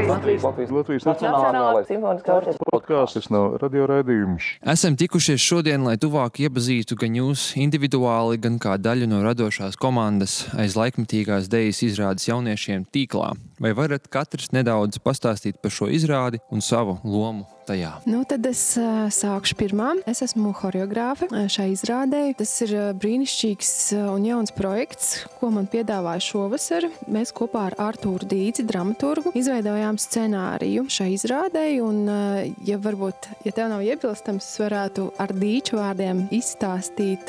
Latvijas Nacionālais simfoniskais orķestris podkāsts. Tas nav radioraidījums. Esam tikušies šodien, lai tuvāk iepazītu gan jūs individuāli, gan kā daļu no radošās komandas aiz laikmetīgās dejas izrādes jauniešiem tīklā. Vai varat katrs nedaudz pastāstīt par šo izrādi un savu lomu tajā? Tad es sākšu pirmā. Es esmu horeogrāfe šai izrādē. Tas ir brīnišķīgs un jauns projekts, ko man piedāvāja šovasar. Mēs kopā ar Artūru Dīdzi, dramaturgu, izveidojām scenāriju šai izrādē. Un, ja tev nav iebilstams, es varētu ar Dīču vārdiem izstāstīt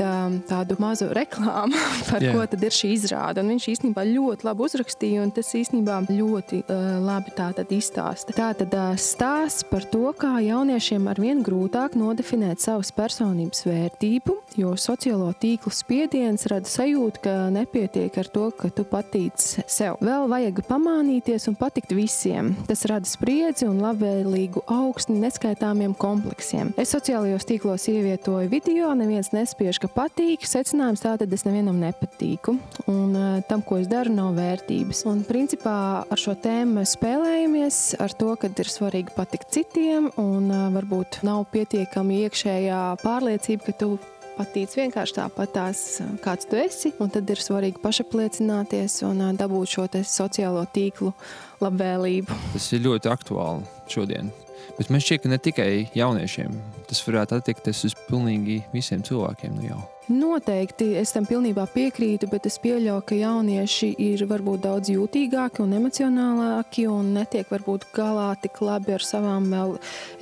tādu mazu reklāmu par ko tad ir šī izrāde. Un viņš īstenībā ļoti labi uzrakstīja, un tas īstenībā ļoti labi tātad izstāsta. Tātad stāsts par to, kā jauniešiem arvien grūtāk nodefinēt savas personības vērtību, jo sociālo tīklu spiediens rada sajūtu, ka nepietiek ar to, ka tu patīc sev. Vēl vajag pamānīties un patikt visiem. Tas rada spriedzi un labvēlīgu augstni neskaitāmiem kompleksiem. Es sociālajos tīklos ievietoju video, neviens nespiež, ka patīk. Secinājums tātad es nevienam nepatīku. Un tam, ko es daru, nav vērtības. Un principā ar šo tēmu mēs spēlējamies ar to, ka ir svarīgi patikt citiem un varbūt nav pietiekami iekšējā pārliecība, ka tu patīc vienkārši tāpatās, kāds tu esi, un tad ir svarīgi pašapliecināties un dabūt šo te sociālo tīklu labvēlību. Tas ir ļoti aktuāli šodien. Bet man šķiet, ka ne tikai jauniešiem. Tas varētu attiekties uz pilnīgi visiem cilvēkiem jau. Noteikti, es tam pilnībā piekrītu, bet es pieļauju, ka jaunieši ir varbūt daudz jūtīgāki un emocionālāki un netiek varbūt galā tik labi ar savām vēl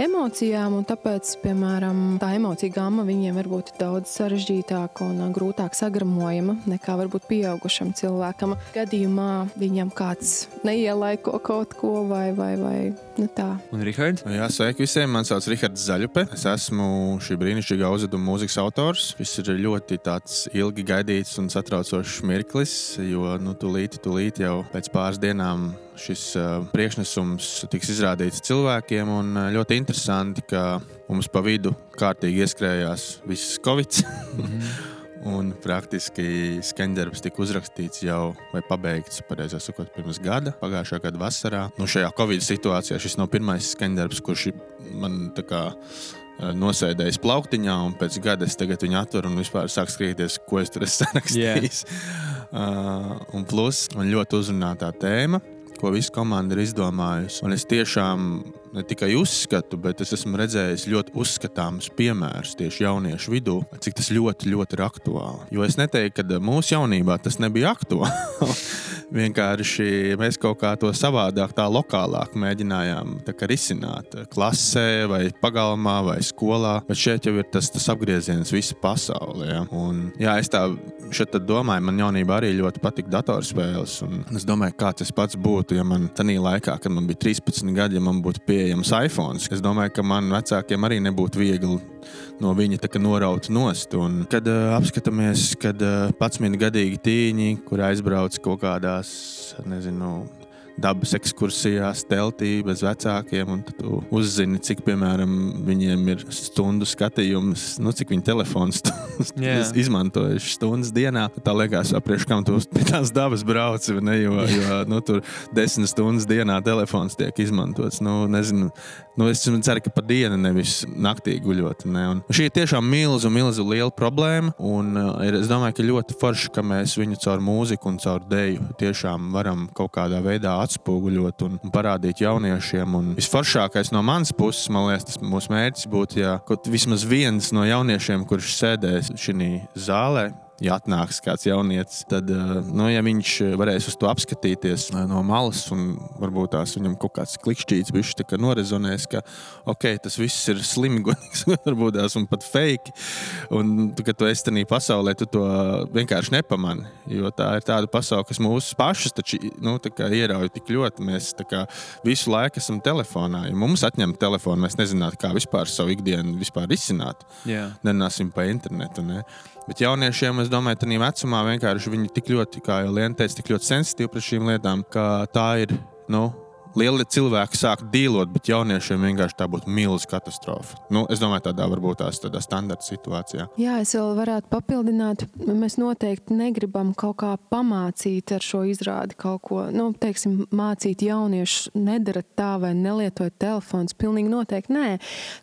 emocijām, un tāpēc, piemēram, tā emocija gamma viņiem varbūt ir daudz sarežģītāka un grūtāk sagramojama nekā varbūt pieaugušam cilvēkam. Gadījumā viņam kāds neielaiko kaut ko vai tā. Un Rihards? Jā, sveiki visiem, man sauc Rihards Zaļupe. Es esmu šī brīnišķīgā uzveduma mūzikas autors. Viss ir ļoti tāds ilgi gaidīts un satraucošs mirklis, jo tūlīt jau pēc pāris dienām šis priekšnesums tiks izrādīts cilvēkiem, un ļoti interesanti, ka mums pa vidu kārtīgi ieskrējās viss Covid. Un praktiski skaņdarbs tika uzrakstīts jau vai pabeigts, pareizāk sakot, pirms gada, pagājušā gada vasarā. Šajā Covid situācijā šis nav pirmais skaņdarbs, kurš man tā kā nosēdējis plauktiņā, un pēc gada es tagad viņu atveru un vispār sāk skrieties, ko es tur esmu sarakstījis. Un plus, man ļoti uzrunā tā tēma, ko visa komanda ir izdomājusi. Un es tiešām ne tikai uzskatu, bet es esmu redzējis ļoti uzskatāmus piemērus tieši jauniešu vidū, cik tas ļoti, ļoti ir aktuāli. Jo es neteiktu, ka mūsu jaunībā tas nebija aktuāli. Vienkārši mēs kaut kā to savādāk, tā lokālāk mēģinājām tā kā risināt klasē vai pagalmā vai skolā, bet šeit jau ir tas apgrieziens visa pasaulē. Ja? Un, es tā šeit domāju, man jaunībā arī ļoti patika datorspēles, un es domāju, kāds es pats būtu, ja man tanī laikā, kad man bija 13 gadi, ja man būtu pieejams iPhones. Es domāju, ka man vecākiem arī nebūtu viegli no viņa tā kā noraut nost. Un kad apskatāmies, kad 11-gadīgi tīņi, kur aizbrauc kaut kādās, dabas ekskursijās, teltī, bez vecākiem, un tad tu uzzini, cik, piemēram, viņiem ir stundu skatījums, cik viņi telefons izmantojuši stundas dienā. Tā liekas, priekš kam tu pie tās dabas brauci, ne, jo tur 10 stundas dienā telefons tiek izmantots. Es ceru, ka pa dienu nevis naktī guļot. Ne? Un šī ir tiešām milzu liela problēma, un es domāju, ka ļoti forši, ka mēs viņu caur mūziku un caur deju tiešām varam kaut kādā veidā atspoguļot un parādīt jauniešiem. Un visforšākais no manas puses, man liekas, tas mūsu mērķis būtu, ja kaut vismaz viens no jauniešiem, kurš sēdēs šī zālē, ja atnāks kāds jaunietis, tad, ja viņš varēs uz to apskatīties no malas un varbūt tās viņam kaut kāds klikšķīts bišķi tā kā norezonēs, ka tas viss ir slimīgs, varbūt tās un pat fake, un kad tu esi tanī pasaulē, tu to vienkārši nepamani, jo tā ir tāda pasaule, kas mūsu pašus taču, tā kā ierauj tik ļoti, mēs tā kā visu laiku esam telefonā, ja mums atņem telefonu, mēs nezinātu, kā vispār savu ikdienu vispār izsināt, nerunāsim pa internetu, ne? Bet jauniešiem, es domāju, tādā vecumā vienkārši viņi tik ļoti, kā jau Liena teica, tik ļoti sensitīvi pret šīm lietām, ka tā ir, lieli cilvēki sāk dīlot, bet jauniešiem vienkārši tā būtu milzīga katastrofa. Es domāju, tādā varbūt tādā standarta situācijā. Jā, es vēl varētu papildināt. Mēs noteikti negribam kaut kā pamācīt ar šo izrādi kaut ko. Teiksim, mācīt jauniešus, nedarat tā vai nelietojat telefons. Pilnīgi noteikti nē.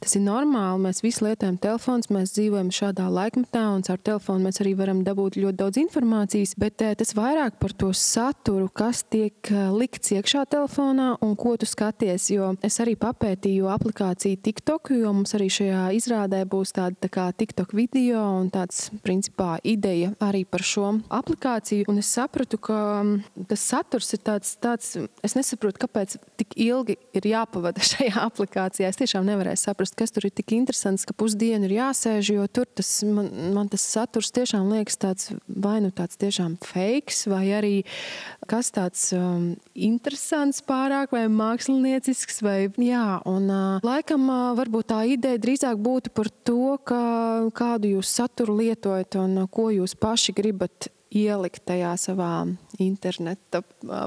Tas ir normāli. Mēs visi lietojam telefons, mēs dzīvojam šādā laikmetā un caur telefonu mēs arī varam dabūt ļoti daudz informācijas, bet tas vairāk par to saturu, kas tiek likts iekšā telefonā un ko tu skaties, jo es arī papētīju aplikāciju TikTok, jo mums arī šajā izrādē būs tāda tā kā TikTok video un tāds, principā, ideja arī par šo aplikāciju, un es sapratu, ka tas saturs ir tāds, es nesaprotu, kāpēc tik ilgi ir jāpavada šajā aplikācijā. Es tiešām nevarēju saprast, kas tur ir tik interesants, ka pusdienu ir jāsēž, jo tur man tas saturs tiešām liekas tāds, vai tāds tiešām fakes, vai arī kas tāds interesants pārāk, vai māksliniecisks, vai jā. Un laikam varbūt tā ideja drīzāk būtu par to, kādu jūs saturu lietojat un ko jūs paši gribat ielikt tajā savā interneta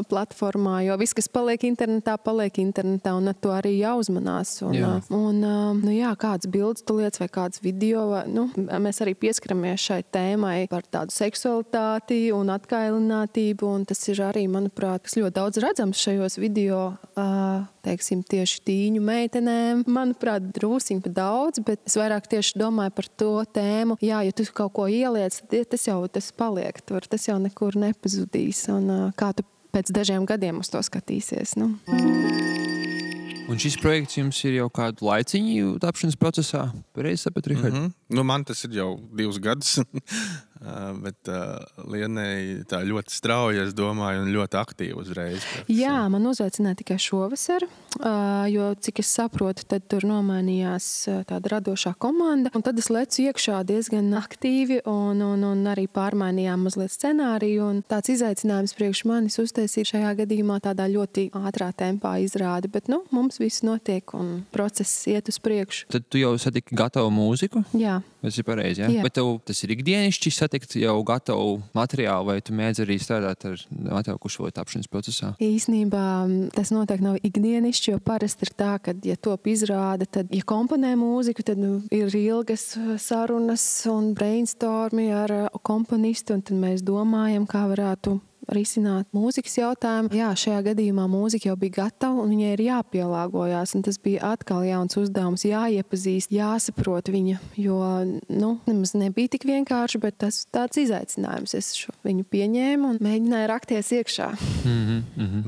platformā, jo viss, kas paliek internetā, un ar to arī jāuzmanās. Kāds bildes tu lietas vai kāds video, mēs arī pieskaramies šai tēmai par tādu seksualitāti un atkailinātību, un tas ir arī, manuprāt, kas ļoti daudz redzams šajos video, teiksim, tieši tīņu meitenēm. Manuprāt, drūsiņ pa daudz, bet es vairāk tieši domāju par to tēmu. Jā, ja tu kaut ko ieliec, tas paliek tur, tas jau nekur nepazudīs. Un kā tu pēc dažiem gadiem uz to skatīsies? Un šis projekts jums ir jau kādu laiciņu tapšanas procesā? Pareizi sapratu, Rihard? Man tas ir jau 2 gadus. Bet Lienei tā ļoti strauji, es domāju, un ļoti aktīvi uzreiz. Jā, man uzaicināja tikai šovasar, jo, cik es saprotu, tad tur nomainījās tāda radošā komanda, un tad es lecu iekšā diezgan aktīvi, un arī pārmainījām mazliet scenāriju, un tāds izaicinājums priekš manis uztaisīt šajā gadījumā tādā ļoti ātrā tempā izrādi, bet, mums viss notiek, un process iet uz priekšu. Tad tu jau satiki gatavu mūziku? Jā. Tas ir pareizi, jā? Bet tev tas ir ikdienišķi satikt jau gatavu materiālu, vai tu mēdz arī strādāt ar gatavu šo tapšanas procesā? Īsnībā tas noteikti nav ikdienišķi, jo parasti ir tā, ka, ja top izrāda, tad, ja komponē mūziku, tad ir ilgas sarunas un brainstormi ar komponistu, un tad mēs domājam, kā varētu risināt mūzikas jautājumu. Jā, šajā gadījumā mūzika jau bija gatava un viņai ir jāpielāgojās, un tas bija atkal jauns uzdevums, jāiepazīst, jāsaprot viņa, jo, nemaz nebija tik vienkārši, bet tas tāds izaicinājums. Es viņu pieņēmu un mēģināju rakties iekšā.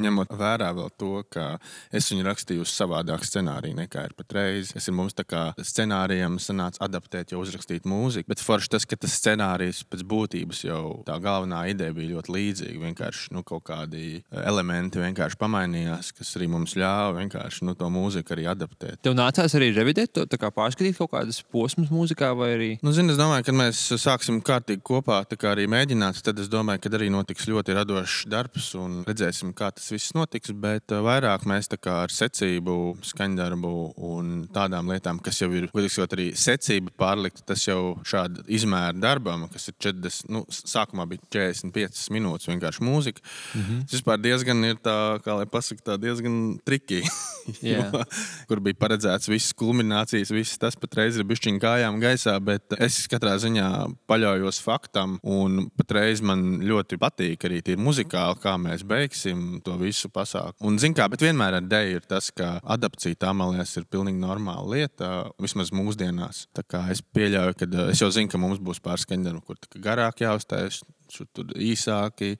Ņemot vērā vēl to, ka es viņu rakstīju uz savādāk scenāriju nekā ir patreiz. Mums tā kā scenārijam sanāca adaptēt, jau uzrakstīt mūziku, bet forši tas, ka tas scenārijs pēc būtības jau tā galvenā ideja bija ļoti līdzīga. Vienkārši kaut kādi elementi vienkārši pamainījās, kas arī mums ļāva vienkārši to mūziku arī adaptēt. Tev nācās arī revidēt to, tā kā pārskatīt kaut kādas posmas mūzikā vai arī? Es domāju, kad mēs sāksim kārtīgi kopā tā kā arī mēģināt, tad es domāju, ka arī notiks ļoti radošs darbs un redzēsim, kā tas viss notiks, bet vairāk mēs tā kā ar secību, skaņdarbu un tādām lietām, kas jau ir, godīgsot arī secība pārlikt, tas jau šāda izmēra darbam, kas ir 40, sākumā bija 45 minūtes vienkārši mūzika. Tas vispār diezgan ir tā, kā lai pasaka, tā diezgan triki. Kur bija paredzēts visas kulminācijas, viss tas patreiz ir bišķiņ kājām gaisā, bet es katrā ziņā paļaujos faktam un patreiz man ļoti patīk arī tie muzikāli, kā mēs beigsim to visu pasākumu. Un zin kā, bet vienmēr ar deju ir tas, ka adapcija tā, man liekas, ir pilnīgi normāla lieta, vismaz mūsdienās. Tā kā es pieļauju, ka es jau zinu, ka mums būs pārskaņdarbi, kur tā garāk jāuztais, tur īsāki,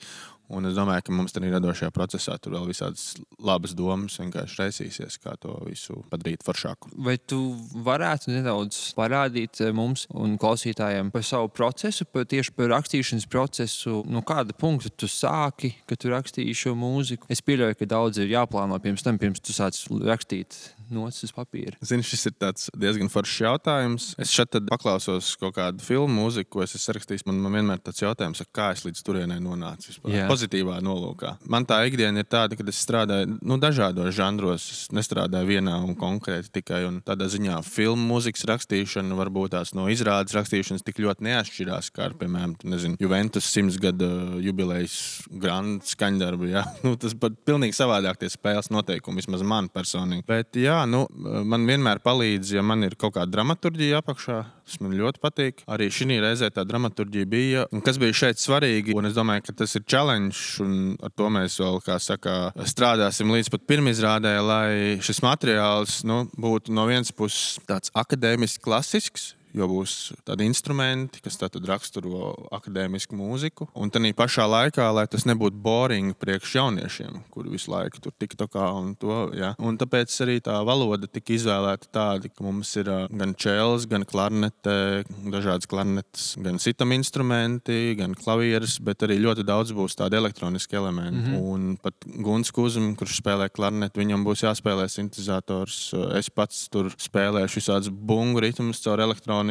un es domāju, ka mums arī radošajā procesā tur vēl visādas labas domas vienkārši raisīsies, kā to visu padarīt foršāku. Vai tu varētu nedaudz parādīt mums un klausītājiem par savu procesu, tieši par rakstīšanas procesu, kāda punkta tu sāki, kad tu rakstīji šo mūziku? Es pieļauju, ka daudz ir jāplāno pirms tu sāc rakstīt nocis uz papīra? Zini, šis ir tāds diezgan foršs jautājums. Es šeit tad paklausos kaut kādu filmu mūziku, ko es esmu rakstījis. Man vienmēr tāds jautājums, kā es līdz turienei nonācu vispār. Jā. Pozitīvā nolūkā. Man tā ikdiena ir tāda, ka es strādāju dažādos žanros. Es nestrādāju vienā un konkrēti tikai. Un tādā ziņā filmu mūzikas rakstīšana varbūt tās no izrādes rakstīšanas tik ļoti neatšķirās, kā ar, piemēram, Juventus 100 gada jubilejas grand skaņdarbu. Ja? Tas pat pilnīgi savādāk tie spēles noteikumi, vismaz man personīgi. Bet jā, man vienmēr palīdz, ja man ir kaut kāda dramaturģija apakšā. Tas man ļoti patīk. Arī šī reizē tā dramaturģija bija. Un kas bija šeit svarīgi, un es domāju, ka tas ir challenge, un ar to mēs vēl, kā saka, strādāsim līdz pat pirmizrādē, lai šis materiāls būtu no vienas puses tāds akadēmiski klasisks, jo būs tādi instrumenti, kas tātad raksturo akadēmisku mūziku. Un tādā pašā laikā, lai tas nebūtu boring priekš jauniešiem, kuri visu laiku tur tiktokā un to. Ja. Un tāpēc arī tā valoda tika izvēlēta tāda, ka mums ir gan čels, gan klarnete, dažādas klarnetes, gan sitam instrumenti, gan klavieres, bet arī ļoti daudz būs tādi elektroniski elementi. Un pat Guns Kuzum, kurš spēlē klarneti, viņam būs jāspēlē sintezators. Es pats tur spēlēšu visādus bungu ritmus caur elektronikām,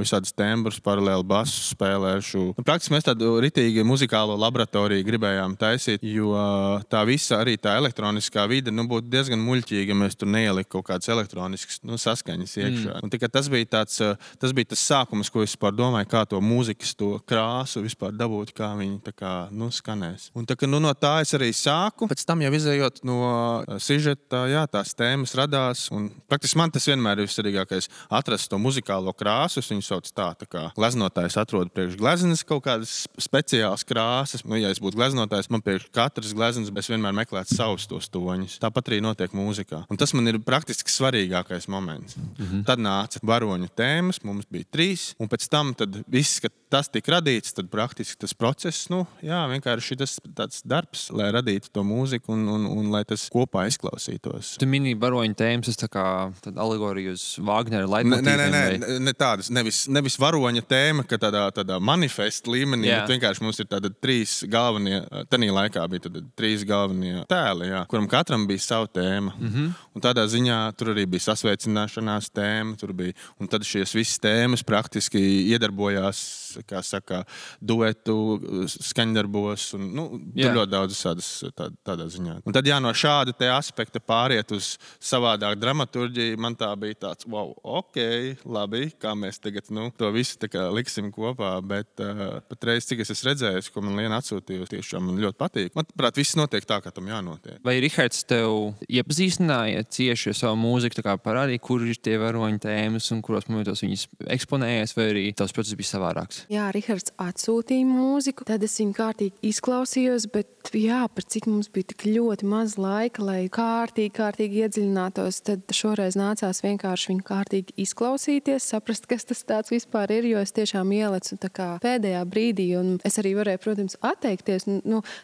visādas tembrus, paralēli basu spēlēšu. Praktiski mēs tādu ritīgi muzikālo laboratoriju gribējām taisīt, jo tā visa arī tā elektroniskā vide būtu diezgan muļķīga, ja mēs tur neielikt kaut kādas elektroniskas saskaņas iekšā. Un tikai tas bija tas sākums, ko es vispār domāju, kā to mūzikas, to krāsu vispār dabūt, kā viņi tā kā skanēs. Un tā, ka, no tā es arī sāku. Pēc tam jau izējot no sižeta, jā, tās tēmas radās. Un praktiski man tas vienmēr ir vissvarīgākais atrast to muzikālo krāsu. Es viņu sauc tā kā gleznotājs atrod priekš gleznas kaut kādas speciālas krāsas. Ja es būtu gleznotājs, man priekš katras gleznas, es vienmēr meklētu savus tos toņus. Tāpat arī notiek mūzikā. Un tas man ir praktiski svarīgākais moments. Tad nāca varoņu tēmas, mums bija 3, un pēc tam viss, kad tas tika radīts, tad praktiski tas process, vienkārši tas tāds darbs, lai radītu to mūziku un lai tas kopā izklausītos. Tu minēji varoņu tēmas, tas tā kā alegorija uz Vāgnera leitmotīviem. Ne tādas, nevis varoņa tēma, ka tādā manifesta līmenī, bet vienkārši mums ir tāda 3 galvenie, tanī laikā bija 3 galvenie tēli, kuram katram bija savu tēma. Un tādā ziņā tur arī bija sasveicināšanās tēma, tur bija, un tad šīs visas tēmas praktiski iedarbojās, kā saka, duetu skaņdarbos, un tur ļoti daudz tādā ziņā. Un tad no šāda te aspekta pāriet uz savādāk dramaturģiju, man tā bija tāds, wow, ok, labi, kā mēs tagad to visu tā kā liksim kopā, bet patreiz, cik es esmu redzējis, ko man Liena atsūtīja, tiešām man ļoti patīk. Manuprāt, viss notiek tā, kā tam jānotiek. Vai Rihards tev iepazīstināja cieši ar savu mūziku, tā kā parādīja, kur ir tie varoņu tēmas un kuros momentos viņas eksponējas, vai arī tavs process bija savādāks? Jā, Rihards atsūtīja mūziku, tad es viņu kārtīgi izklausījos, bet par cik mums bija tik ļoti maz laika, lai kārtīgi iedziļinātos, tad šoreiz nācās vienkārši viņu kārtīgi izklausīties, saprast, kas tas tāds vispār ir, jo es tiešām ielecu tā kā pēdējā brīdī, un es arī varēju, protams, atteikties,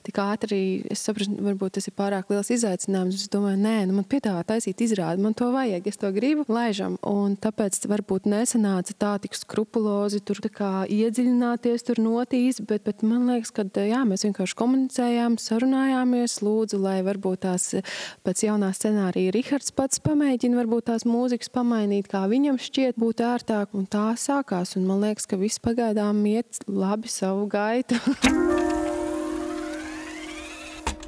tik ātri, es saprastu, varbūt tas ir pārāk liels izaicinājums, es domāju, man piedāvā taisīt izrādi, man to vajag, es to gribu, laižam, un tāpēc varbūt nesanāca tā tik skrupulozi tur tā kā iedziļināties tur notīs, bet man liekas, ka mēs vienkārši komunicējām, sarunājāmies, lūdzu, lai varbūt tās pēc jaunā scenārija Rihards pats pamēģina varbūt tās mūzikas pamainīt, kā viņam šķiet būtu ērtāk, un tā sākās, un man liekas, ka viss pagaidām iet labi savu gaitu.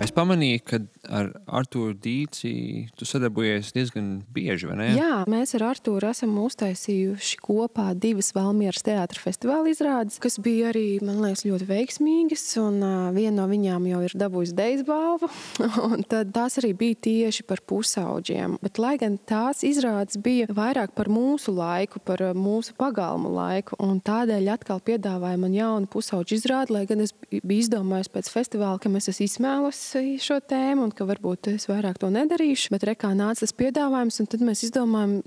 Es pamanīju, ka ar Artūru Dīci tu sadarbojies diezgan bieži, vai ne? Jā, mēs ar Artūru esam uztaisījuši kopā 2 Valmieras teātra festivāla izrādes, kas bija arī, man liekas, ļoti veiksmīgas, un viena no viņām jau ir dabūjusi Dejas balvu, un tad tās arī bija tieši par pusauģiem. Bet, lai gan tās izrādes bija vairāk par mūsu laiku, par mūsu pagalmu laiku, un tādēļ atkal piedāvāja man jaunu pusauģu izrādi, lai gan es biju izdomājis pēc festivāla, ka mēs esam izsmēlus šo tēmu un ka varbūt es vairāk to nedarīšu, bet rekā nāca tas piedāvājums, un tad mēs izdomājam,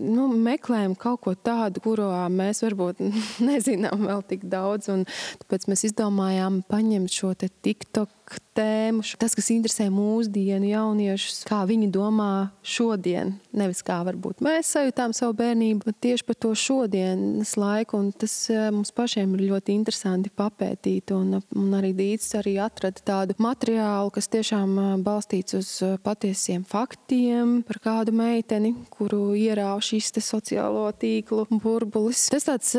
meklējam kaut ko tādu, kurā mēs varbūt nezinām vēl tik daudz, un tāpēc mēs izdomājām paņemt šo te TikTok tēmu, tas, kas interesē mūsdienu jauniešus, kā viņi domā šodien, nevis kā varbūt mēs sajūtām savu bērnību, bet tieši par to šodienas laiku, un tas mums pašiem ir ļoti interesanti papētīt, un arī Dīts arī atrada tādu materiālu, kas tiešām balstīts uz patiesiem faktiem par kādu meiteni, kuru ierāva šis te sociālo tīklu burbulis. Tas tāds,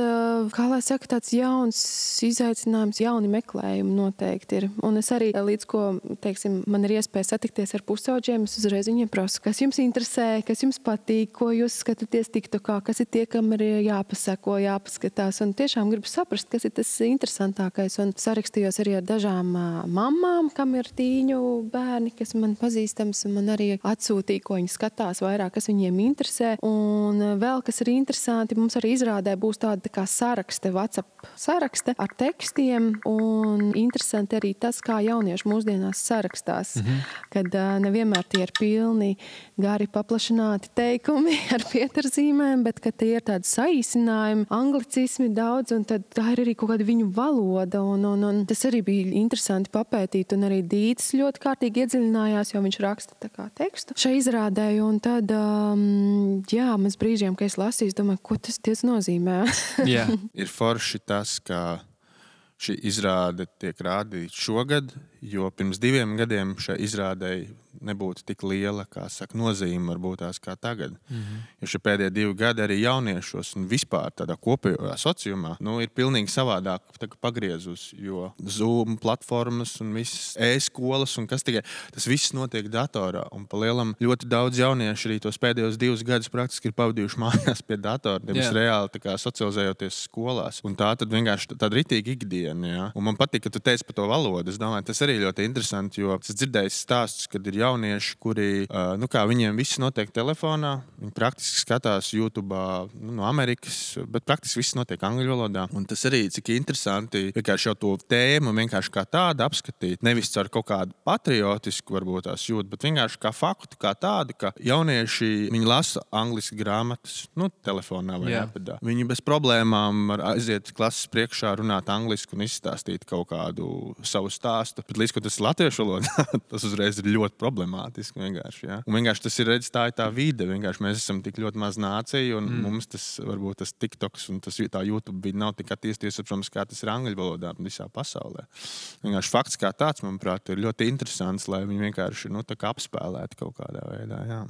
kā lai saka, tāds jauns izaicinājums, jauni meklējumi noteikti ir. Un es arī līdz ko, teiksim, man ir iespēja satikties ar pusauģiem, es uzreiz viņiem prasu, kas jums interesē, kas jums patīk, ko jūs skatāties TikTokā, kas ir tie, kam ir jāpasako, jāpaskatās. Un tiešām gribu saprast, kas ir tas interesantākais. Un sarakstījos arī ar dažām mammām, kam ir tīņu bērni, kas man pazīstams, un man arī atsūtīja, ko viņi skatās vairāk, kas viņiem interesē. Un vēl, kas ir interesanti, mums arī izrādē būs tāda kā sarakste, WhatsApp sarakste ar tekstiem, un interesanti arī tas, kā jaunieši mūsdienās sarakstās, kad nevienmēr tie ir pilni gari paplašināti teikumi ar pieturzīmēm, bet kad tie ir tādi saīsinājumi, anglicismi daudz, un tad tā ir arī kaut kāda viņu valoda, un tas arī bija interesanti papētīt, un arī Dītis ļoti kārtīgi iedziļinājās, jo viņš raksta tā kā tekstu šai izrādēju, un tad, jā, mēs brīžiem, ka es lasīju, domāju, ko tas nozīmē. Jā. Ir forši tas, ka šī izrāde tiek rādīta šogad, jo pirms 2 gadiem šai izrādei nebūtu tik liela, kā saka, nozīme varbūt tās kā tagad. Jo šie pēdējie 2 gadi arī jauniešos un vispār tādā kopējā sociumā, ir pilnīgi savādāk pagriezus, jo Zoom platformas un visas e-skolas un kas tikai, tas viss notiek datorā. Un pa lielam ļoti daudz jaunieši arī tos pēdējos 2 gadus praktiski ir pavadījuši mājās pie datora, nevis reāli tā kā socializējoties skolās. Un tā tad vienkārši tāda ritīga ikdiena, jā. Un man patīk, ka tu teici par to valodu. Es domāju, tas arī ļoti interesanti, jo es dzirdēju stāstus, kad ir jaunieši, kuri, kā viņiem viss notiek telefonā, viņi praktiski skatās YouTube no Amerikas, bet praktiski viss notiek angļu valodā. Un tas arī, cik interesanti, vienkārši jau to tēmu vienkārši kā tādu apskatīt, nevis ar kaut kādu patriotisku varbūt tās jūt, bet vienkārši kā faktu, kā tādu, ka jaunieši, viņi lasa angliski grāmatas, telefonā vai iPadā. Viņi bez problēmām var aiziet klases priekšā, runāt angliski un izstāstīt kaut kādu savu stāstu. Bet līdz ko tas ir latviešu valodā, tas uzreiz ir ļoti problemātiski vienkārši, jā. Un vienkārši tas ir, redz, tā ir tā vide, vienkārši mēs esam tik ļoti maz nācija, un mums tas, varbūt tas TikToks un tas tā YouTube vide nav tik attīstījies, protams, kā tas ir angļu valodā visā pasaulē. Vienkārši fakts kā tāds, manuprāt, ir ļoti interesants, lai viņi vienkārši, tā kā apspēlētu kaut kādā veidā, jā.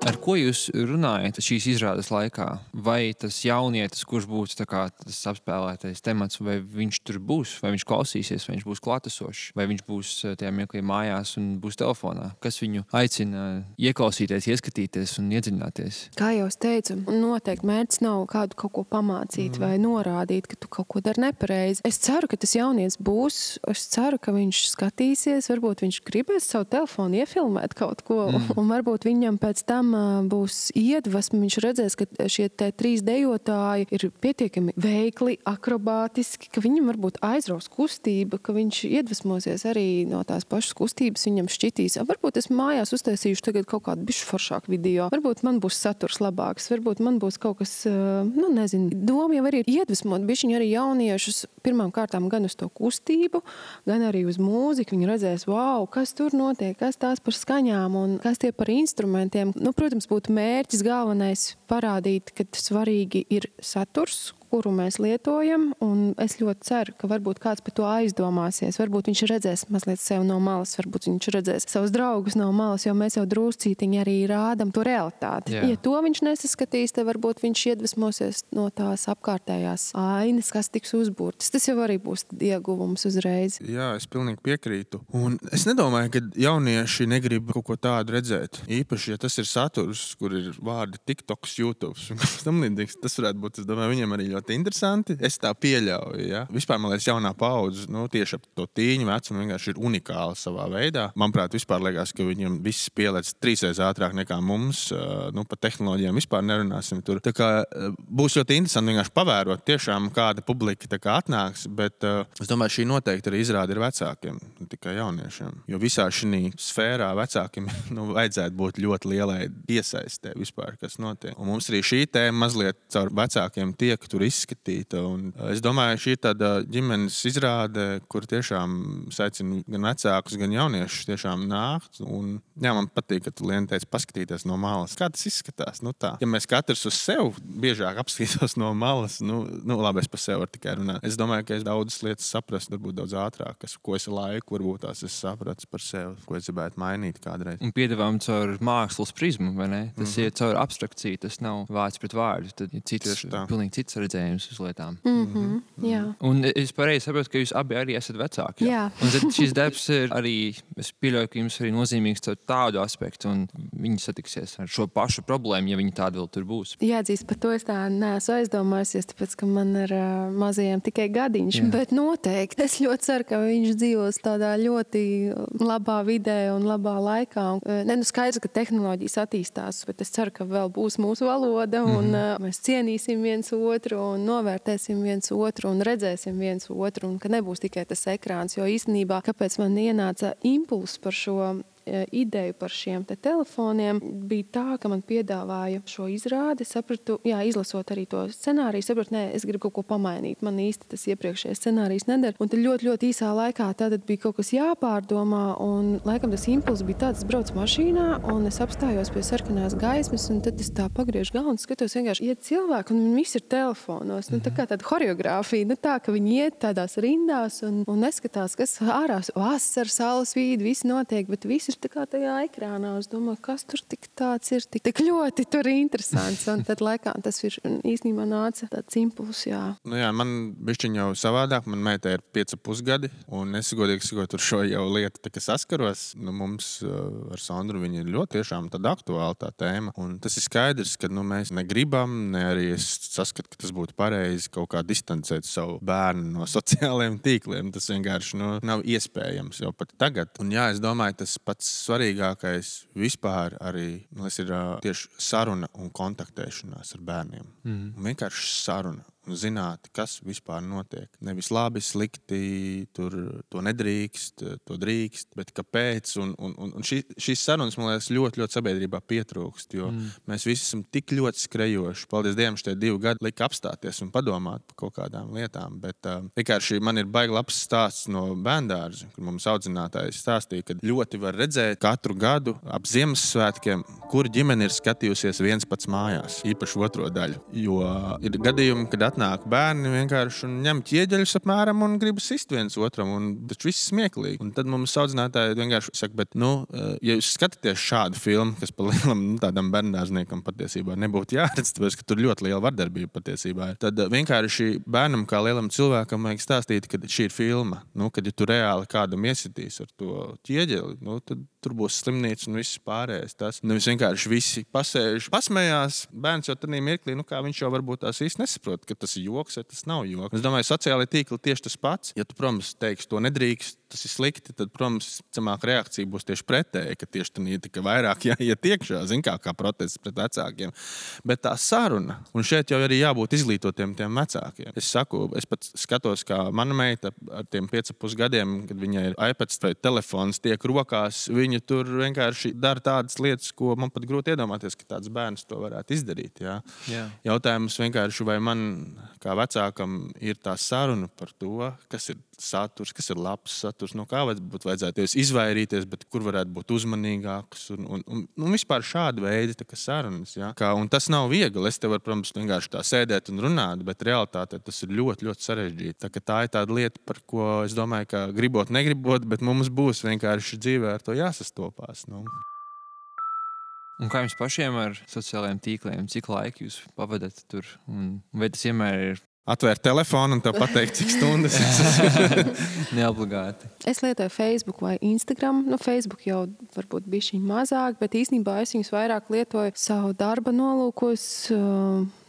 Ar ko jūs runājat šīs izrādes laikā? Vai tas jaunietis, kurš būs tā kā tas apspēlētais temats, vai viņš tur būs, vai viņš klausīsies, vai viņš būs klātesošs, vai viņš būs tajā mirklī mājās un būs telefonā? Kas viņu aicina ieklausīties, ieskatīties un iedziļināties? Kā jau es teicu, noteikti mērķis nav kādu kaut ko pamācīt vai norādīt, ka tu kaut ko dari nepareizi. Es ceru, ka tas jaunietis būs, es ceru, ka viņš skatīsies, varbūt viņš gribēs savu telefonu iefilmēt kaut ko, un varbūt viņam pēc tam būs iedvesma, viņš redzēs, ka šie 3 dejotāji ir pietiekami veikli, akrobātiski, ka viņam varbūt aizraus kustība, ka viņš iedvesmosies arī no tās pašas kustības, viņam šķitīs. Varbūt es mājās uztaisīšu tagad kaut kādu bišķi foršāku video, varbūt man būs saturs labāks, varbūt man būs kaut kas, nezinu. Doma jau arī ir iedvesmot bišķiņi arī jauniešus pirmām kārtām gan uz to kustību, gan arī uz mūziku. Viņi redzēs, wow, kas tur notiek, kas tās par skaņām un kas tie par instrumentiem. Protams, būtu mērķis galvenais parādīt, ka svarīgi ir saturs, kuru mēs lietojam, un es ļoti ceru, ka varbūt kāds par to aizdomāsies. Varbūt viņš redzēs mazliet sev no malas, varbūt viņš redzēs savus draugus no malas, jo mēs jau druscītiņi arī rādam to realitāti. Jā. Ja to viņš nesaskatīs, tad varbūt viņš iedvesmosies no tās apkārtējās ainas, kas tiks uzbūrtas. Tas jau arī būs ieguvums uzreiz. Jā, es pilnīgi piekrītu. Un es nedomāju, ka jaunieši negrib kaut ko tādu redzēt. Īpaši, ja tas ir saturs, kur ir vārdi TikToks, YouTubes. Tas varētu būt, es domāju, viņiem arī ļoti interesanti. Es tā pieļauju, ja. Vispār, man liekas, jaunā paudze, tieši ap to tīņu vecumu vienkārši ir unikāla savā veidā. Manuprāt, vispār liekas, ka viņiem viss pielēc 3 reizes ātrāk nekā mums. Par tehnoloģijām vispār nerunāsim tur. Tā kā būs ļoti interesanti vienkārši pavērot tiešām kāda publika tā kā atnāks, bet es domāju, šī noteikti arī izrāda ir vecākiem, ne tikai jauniešiem. Jo visā šī sfērā vecākiem vajadzētu būt ļoti lielai iesaistē vispār, kas notiek. Un mums arī šī tēma mazliet caur vecākiem tiek tur izskatīta. Un es domāju, šī ir tāda ģimenes izrāde, kur tiešām saicina gan vecākus, gan jauniešus tiešām nākt. Un, jā, man patīk, ka tu, Liena, teici paskatīties no malas. Kā tas izskatās? Nu, tā. Ja mēs katrs uz sevi biežāk apskatītos no malas, labi, es par sevi varu tikai runāt. Es domāju, ka es daudzas lietas saprastu, varbūt daudz ātrāk, ko es laiku, varbūt tās es sapratu par sevi, ko es gribētu mainīt kādreiz. Un piedāvām caur mākslas prizmu, vai ne? Tas ir caur abstrakciju, tas nav vārds pret vārdu. Tad ir pilnīgi cits redzējums uz lietām. Jā. Un es pareizi saprotu, ka jūs abi arī esat vecāki. Jā. Un tad šis darbs ir arī, es pieļauju, ka jums arī nozīmīgs caur tādu aspektu, un viņi satiksies ar šo pašu problēmu, ja viņi tādi vēl tur būs. Jāatzīst, par to es tā neesmu aizdomājusies, tāpēc, ka man ar mazajiem tikai gadiņš, bet noteikti. Es ļoti ceru, ka viņš dzīvos tādā ļoti labā vidē un labā laikā. Skaidrs, ka tehnoloģijas attīstās, bet es ceru, ka vēl būs mūsu valoda un mēs cienīsim viens otru un novērtēsim viens otru un redzēsim viens otru un ka nebūs tikai tas ekrāns, jo īstenībā, kāpēc man ienāca impulss par šo ideju par šiem telefoniem, bija tā, ka man piedāvāja šo izrādi. Sapratu, izlasot arī to scenāriju, sapratu, es gribu kaut ko pamainīt. Man īsti tas iepriekšējais scenārijs nedara. Un tad ļoti, ļoti īsā laikā tātad bija kaut kas jāpārdomā, un laikam tas impulss bija tāds, es braucu mašīnā, un es apstājos pie sarkanās gaismas, un tad es tā pagriežu galvu un skatos vienkārši iet cilvēki, un viņi visi ir telefonos. Tā kā tāda horeogrāfija, tā, ka viņi iet tādās rindās un neskatās, kas ārās, vasara, saules vīdi, viss notiek, bet viss ir tā kā tajā ekrānā. Es domāju, kas tur tik tāds ir, tik ļoti tur interesants. Un tad laikā tas ir īstenībā nāca tāds impulss, jā. Man bišķiņ jau savādāk. Man meitai ir 5,5 gadi, un es godīgi sakot, ar šo jau lietu tā kā saskaros. Mums ar Sandru viņa ir ļoti tiešām tāda aktuāla tā tēma. Un tas ir skaidrs, ka mēs negribam, ne arī es saskatu, ka tas būtu pareizi kaut kā distancēt savu bērnu no sociālajiem tīkliem. Tas vienkārši nav iespējams jau pat tagad. Un es domāju, tas pats svarīgākais vispār arī ir tieši saruna un kontaktēšanās ar bērniem. Vienkārši saruna. Zināt, kas vispār notiek. Nevis labi, slikti, to nedrīkst, to drīkst, bet kāpēc. Un šīs sarunas, man liekas, ļoti, ļoti sabiedrībā pietrūkst, jo mēs visi esam tik ļoti skrejoši. Paldies Dievam, šie 2 gadi lika apstāties un padomāt par kaut kādām lietām, bet vienkārši man ir baigi labs stāsts no bērndārza, kur mums audzinātājs stāstīja, ka ļoti var redzēt katru gadu ap Ziemassvētkiem, kur ģimene ir skatījusies viens pats mājās, īpaši otro daļu. Jo ir gadījumi, kad nāk bērni vienkārši un ņem ķieģeļus apmēram un grib sist viens otram, un tas viss smieklīgi. Un tad mums audzinātāji vienkārši saka, bet, ja jūs skatāties šādu filmu, kas pa lielam tādam bērndārzniekam patiesībā nebūtu jāredz, tāpēc, ka tur ļoti liela vardarbība patiesībā ir, tad vienkārši bērnam kā lielam cilvēkam vajag stāstīt, ka šī ir filma. Kad ja tu reāli kādam iesitīs ar to ķieģeli, tad tur būs slimnīca un viss pārējais. Tas nevis vienkārši visi pasēž, pasmējās, bērns jau tādā mirklī, kā viņš jau varbūt tās īsti nesaprot, ka tas ir joks, vai tas nav joks. Es domāju, sociālai tīkli tieši tas pats. Ja tu, protams, teiksi, to nedrīkst, tas ir slikti, tad, protams, cemāk reakcija būs tieši pretēji, ka tieši tā ir tikai vairāk jāiet iekšā, kā protests pret vecākiem. Bet tā saruna, un šeit jau arī jābūt izglītotiem tiem vecākiem. Es saku, es pat skatos, kā mana meita ar tiem 5,5 gadiem, kad viņai ir iPads vai telefons tiek rokās, viņa tur vienkārši dara tādas lietas, ko man pat grūti iedomāties, ka tāds bērns to varētu izdarīt. Jā. Jautājums vienkārši, vai man kā vecākam ir tā saruna par to, kas ir saturs, kas ir labs saturs, no kā vajadzētu izvairīties, bet kur varētu būt uzmanīgāks un vispār šāda veida sarunas. Ja? Un tas nav viegli. Es te varu, protams, vienkārši tā sēdēt un runāt, bet realitātē tas ir ļoti, ļoti sarežģīti. Tā ir tāda lieta, par ko es domāju, ka gribot, negribot, bet mums būs vienkārši dzīvē ar to jāsastopās. Un kā jums pašiem ar sociālajiem tīkliem? Cik laika jūs pavadat tur? Un vai tas vienmēr ir atvērt telefonu un tev pateikt, cik stundas. Neobligāti. Es lietoju Facebook vai Instagram. Facebook jau varbūt bišķiņ mazāk, bet īstenībā es viņus vairāk lietoju savu darba nolūkos.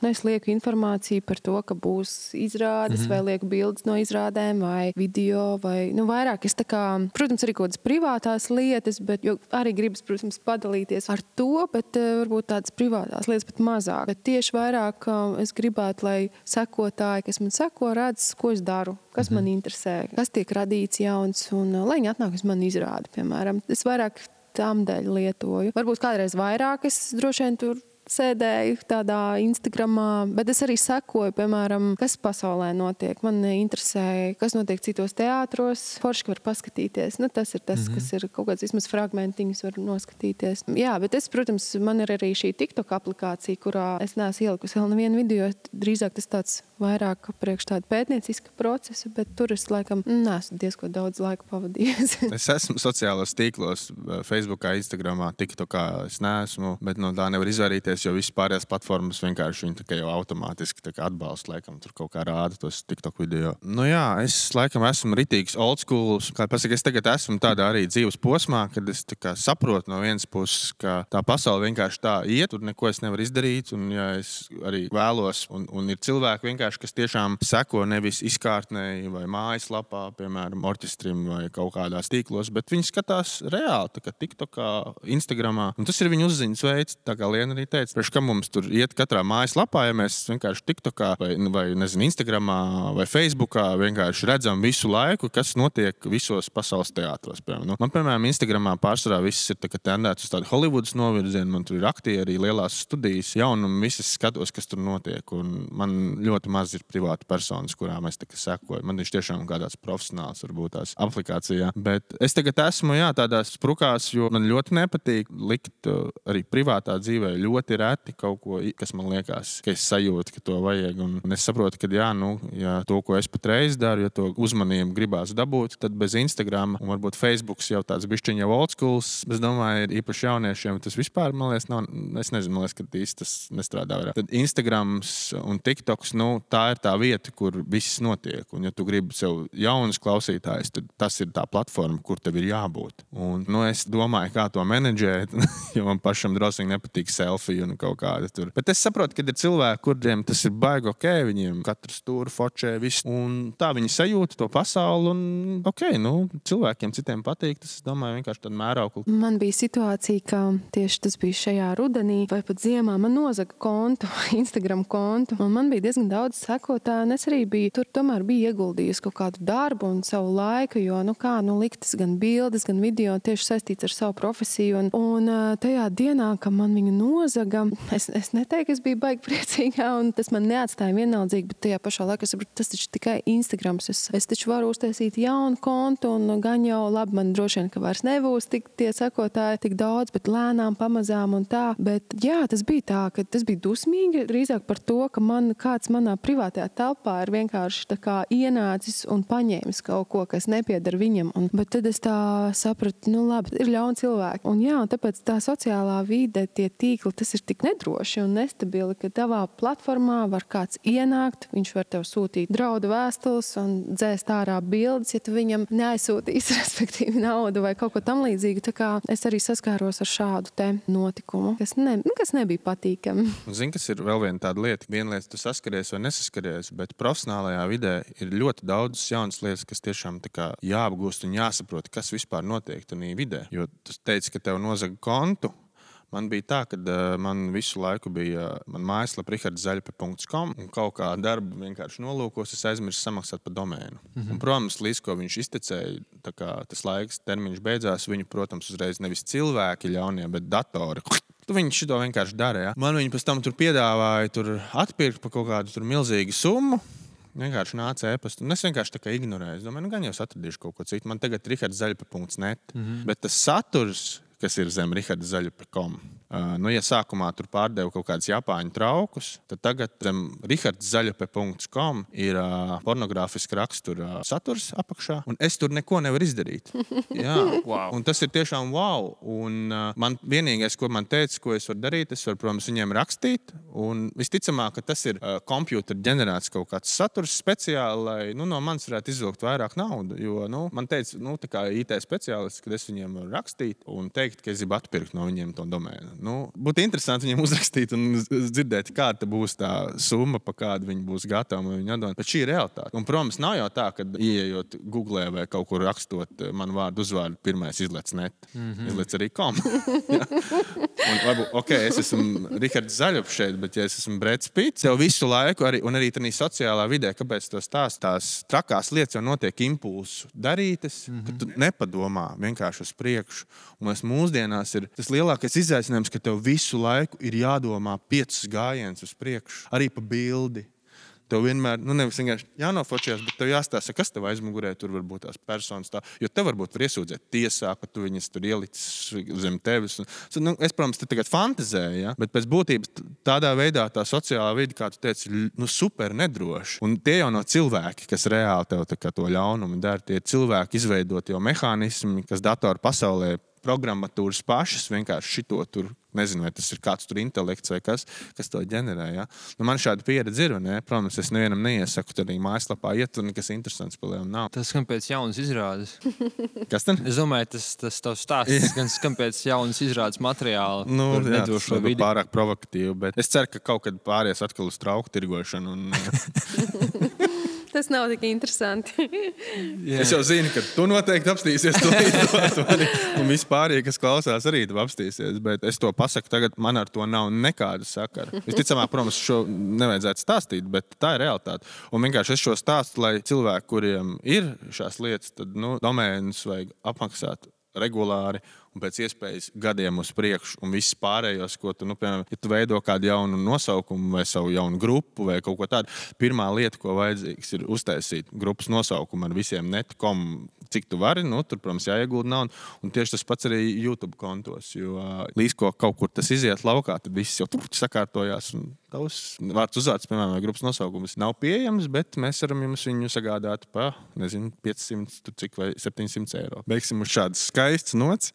Es lieku informāciju par to, ka būs izrādes, vai lieku bildes no izrādēm, vai video, vai vairāk. Es protams, arī kaut kādas privātās lietas, bet arī gribas, protams, padalīties ar to, bet varbūt tādas privātās lietas pat mazāk. Bet tieši vairāk es gribētu, lai sekotāji, kas man seko, redz, ko es daru, kas man interesē, kas tiek radīts jauns, un lai viņi atnāk uz mani izrādi, piemēram. Es vairāk tām dēļ lietoju. Varbūt kādreiz vairāk es droši vien tur sēdēju tādā Instagramā, bet es arī sekoju, piemēram, kas pasaulē notiek. Man interesē, kas notiek citos teātros. Forši var paskatīties. Nu, tas ir tas, kas ir kaut kāds vismaz fragmentiņus var noskatīties. Jā, bet es, protams, man ir arī šī TikTok aplikācija, kurā es neesmu ielikusi vēl nevienu video. Drīzāk tas tāds vairāk priekš tāda pētnieciska procesa, bet tur es laikam neesmu diezko daudz laika pavadījis. Es esmu sociālos tīklos, Facebookā, Instagramā, TikTokā es neesmu, bet no tā nevar izvairīties, jo visas pārējās platformas vienkārši viņi tā jau automātiski atbalsta, laikam tur kaut kā rāda tos TikTok video. Nu jā, es laikam esmu ritīgs old school, kā pasaka, es tagad esmu tādā arī dzīves posmā, kad es tā kā saprotu no vienas puses, ka tā pasaule vienkārši tā iet, tur neko es nevaru izdarīt, un ja es arī vēlos, un ir cilvēki vienkārši, kas tiešām seko nevis izkārtnēji vai mājaslapā, piemēram, orķestrim vai kaut kādās tīklos, bet viņi skatās reāli, tā kā TikTokā, Instagramā, un tas ir viņu uzziņas veids, tā kā Liena arī teica, priekš kam mums tur iet katrā mājaslapā, ja mēs vienkārši TikTokā vai nezinu, Instagramā vai Facebookā vienkārši redzam visu laiku, kas notiek visos pasaules teātros. Nu, man, piemēram, Instagramā pārsvarā viss ir tendēts uz tādu Hollywoodas novirzienu, man tur ir aktieri, lielās studijas, jaunumi, visas skatos, kas tur notiek, un man ļoti maz ir privāta personas, kurām es sekoju. Man viņš tiešām kādās profesionāls varbūt tās aplikācijā, bet es tagad esmu, tādās sprukās, jo man ļoti nepatīk likt arī privātā dzīvē ļoti reti kaut ko, kas man liekas, ka es sajūtu, ka to vajag, un es saprotu, ka ja to, ko es patreiz daru, ja to uzmanību gribās dabūt, tad bez Instagram un varbūt Facebooks jau tāds bišķiņ jau old schools, es domāju, ir īpaši jauniešiem, tas vispār, man liekas, nav, es nezinu, man liekas, ka īsti tas nestrādā vairāk. Tad Instagrams un TikToks, tā ir tā vieta, kur viss notiek, un ja tu gribi sev jaunus klausītājus, tad tas ir tā platforma, kur tev ir jābūt. Un, es domāju, kā to menedžēt, jo man pašam drosīgi nepatīk selfie un kaut kāda tur. Bet es saprotu, ka ir cilvēki, kuriem tas ir baigi ok, viņiem katrs tur fočē viss, un tā viņi sajūta to pasauli, un ok, cilvēkiem citiem patīk, tas, es domāju, vienkārši tāda mēraukla. Man bija situācija, ka tieši tas bija šajā rudenī vai pat ziemā, man nozaga kontu, Instagram kontu, un man bija diezgan daudz sekotāju, un es arī tur tomēr biju ieguldījusi kaut kādu darbu un savu laiku, jo, liktas gan bildes, gan video tieši saistīts ar savu profesiju, un tajā dienā, kad man viņu nozaga, es neteiktu, es biju baigi priecīgā, un tas man neatstāja vienaldzīgi, bet tajā pašā laikā es saprotu, tas taču tikai Instagrams. Es taču varu uztaisīt jaunu kontu, un gan jau labi, man droši vien, ka vairs nebūs tie sekotāji tik daudz, bet lēnām, pamazām un tā. Bet jā, tas bija tā, ka tas bija dusmīgi drīzāk par to, ka kāds manā privātajā telpā ir vienkārši tā kā ienācis un paņēmis kaut ko, kas nepieder viņam. Bet tad es tā sapratu, labi, ir ļauni cilvēki. Un jā, un tāpēc tā sociālā vide, tie tīkli, tas ir tik nedroši un nestabili, ka tavā platformā var kāds ienākt, viņš var tev sūtīt draudu vēstules un dzēst ārā bildes, ja tu viņam neaizsūtīs, respektīvi, naudu vai kaut ko tam līdzīgu. Tā kā es arī saskāros ar šādu te notikumu, kas nebija patīkami. Zini, kas ir vēl viena tāda lieta. Viena lieta, tu saskaries vai nesaskaries, bet profesionālajā vidē ir ļoti daudz jaunas lietas, kas tiešām tā kā jāapgūst un jāsaprot, kas vispār notiek tajā vidē. Jo tu teici, ka tev nozaga kontu. Man bija tā, ka man visu laiku bija mājaslapa richardzaļpe.com un kaut kā darba vienkārši nolūkos, es aizmirsu samaksāt par domēnu. Un, protams, līdz ko viņš iztecēja, tā kā tas laiks termiņš beidzās, viņu, protams, uzreiz nevis cilvēki ļaunie, bet datori. Viņi šito vienkārši dara, ja. Man viņi pēc tam tur piedāvāja atpirkt par kaut kādu tur milzīgu summu. Vienkārši nāca ēpastu. Un es vienkārši tā kā ignorēju. Es domāju, gan jau es atradīšu kaut ko citu. Man tagad richardzaļpe.net. Bet tas saturs, kas ir zem richardzaļpe.com. Ja sākumā tur pārdeva kaut kādus japāņu traukus, tad tagad zem richardzaļpe.com ir pornogrāfiski rakstura saturs apakšā, un es tur neko nevaru izdarīt. Jā, wow. Un tas ir tiešām wow. Un man vienīgais, ko man teica, ko es varu darīt, es varu, protams, viņiem rakstīt, un visticamāk, ka tas ir kompjūtera ģenerēts kaut kāds saturs speciāli, lai no manis varētu izvilkt vairāk naudu, jo man teica, tā kā IT speciālists, kad es viņiem varu rakstīt un teikt, ka es gribu atpirkt no viņiem to domēnu. Būtu interesanti viņiem uzrakstīt un dzirdēt, kāda būs tā summa, pa kādu viņi būs gatavi viņu atdot. Bet šī ir realitāte. Un, protams, nav jau tā, ka ieejot Googlē vai kaut kur rakstot manu vārdu uzvārdu, pirmais izlec net. Izlec arī com. Un varbūt, es esmu Rihards Zaļups šeit, bet ja es esmu Breds Pits, jau visu laiku, un arī tādā sociālā vidē, kāpēc tās trakās lietas jau notiek impulsu darītas, ka tu nepadomā vienkārši uz priekšu. Un mūsdienās ir tas lielākais izaicinājums, ka tev visu laiku ir jādomā 5 gājienus uz priekšu, arī pa bildi. Tev vienmēr, nevis vienkārši jānofočējās, bet tev jāstāsta, kas tev aizmugurē, tur var būt tās personas tā, jo tev varbūt var iesūdzēt tiesā, ka tu viņas tur ielicis zem tevis. Es, protams, te tagad fantazēju, ja? Bet pēc būtības tādā veidā tā sociālā vide, kā tu teici, super nedroši. Un tie jau nav cilvēki, kas reāli tev tā kā to ļaunumu dara. Tie cilvēki izveidot jau mehānismi, kas datoru pasaulē programmatūras pašas vienkārši šito tur, nezinu, vai tas ir kāds tur intelekts vai kas to ģenerē. Ja? Man šāda pieredze ir, ne? Protams, es nevienam neiesaku tad arī mājaslapā iet, tur nekas interesants palielam nav. Tas skan pēc jaunas izrādes. Kas tad? Es domāju, tas tavs stāsts gan skan pēc jaunas izrādes materiāla. Tas ir pārāk provokatīvi, bet es ceru, ka kaut kad pāries atkal uz trauku tirgošanu. Tas nav tik interesanti. Es jau zinu, ka tu noteikti apstīsies to un vispārīgi, kas klausās, arī tu apstīsies. Bet es to pasaku tagad, man ar to nav nekāda sakara. Visticamāk, protams, šo nevajadzētu stāstīt, bet tā ir realitāte. Un vienkārši es šo stāstu, lai cilvēki, kuriem ir šās lietas, tad domēnus vajag apmaksāt regulāri un pēc iespējas gadiem uz priekšu un viss pārējos, ko tu, piemēram, ja tu veido kādu jaunu nosaukumu vai savu jaunu grupu vai kaut ko tādu, pirmā lieta, ko vajadzīgs, ir uztaisīt grupas nosaukumu ar visiem net.com, cik tu vari, tur, protams, jāiegulda naudu, un tieši tas pats arī YouTube kontos, jo līdz ko kaut kur tas iziet laukā, tad viss jau sakārtojās un tavs vārds uzvārds, piemēram, vai grupas nosaukums nav pieejams, bet mēs varam jums viņu sagādāt pa, 500 cik vai 700 eiro. Beigsim uz šādas skaistas nots.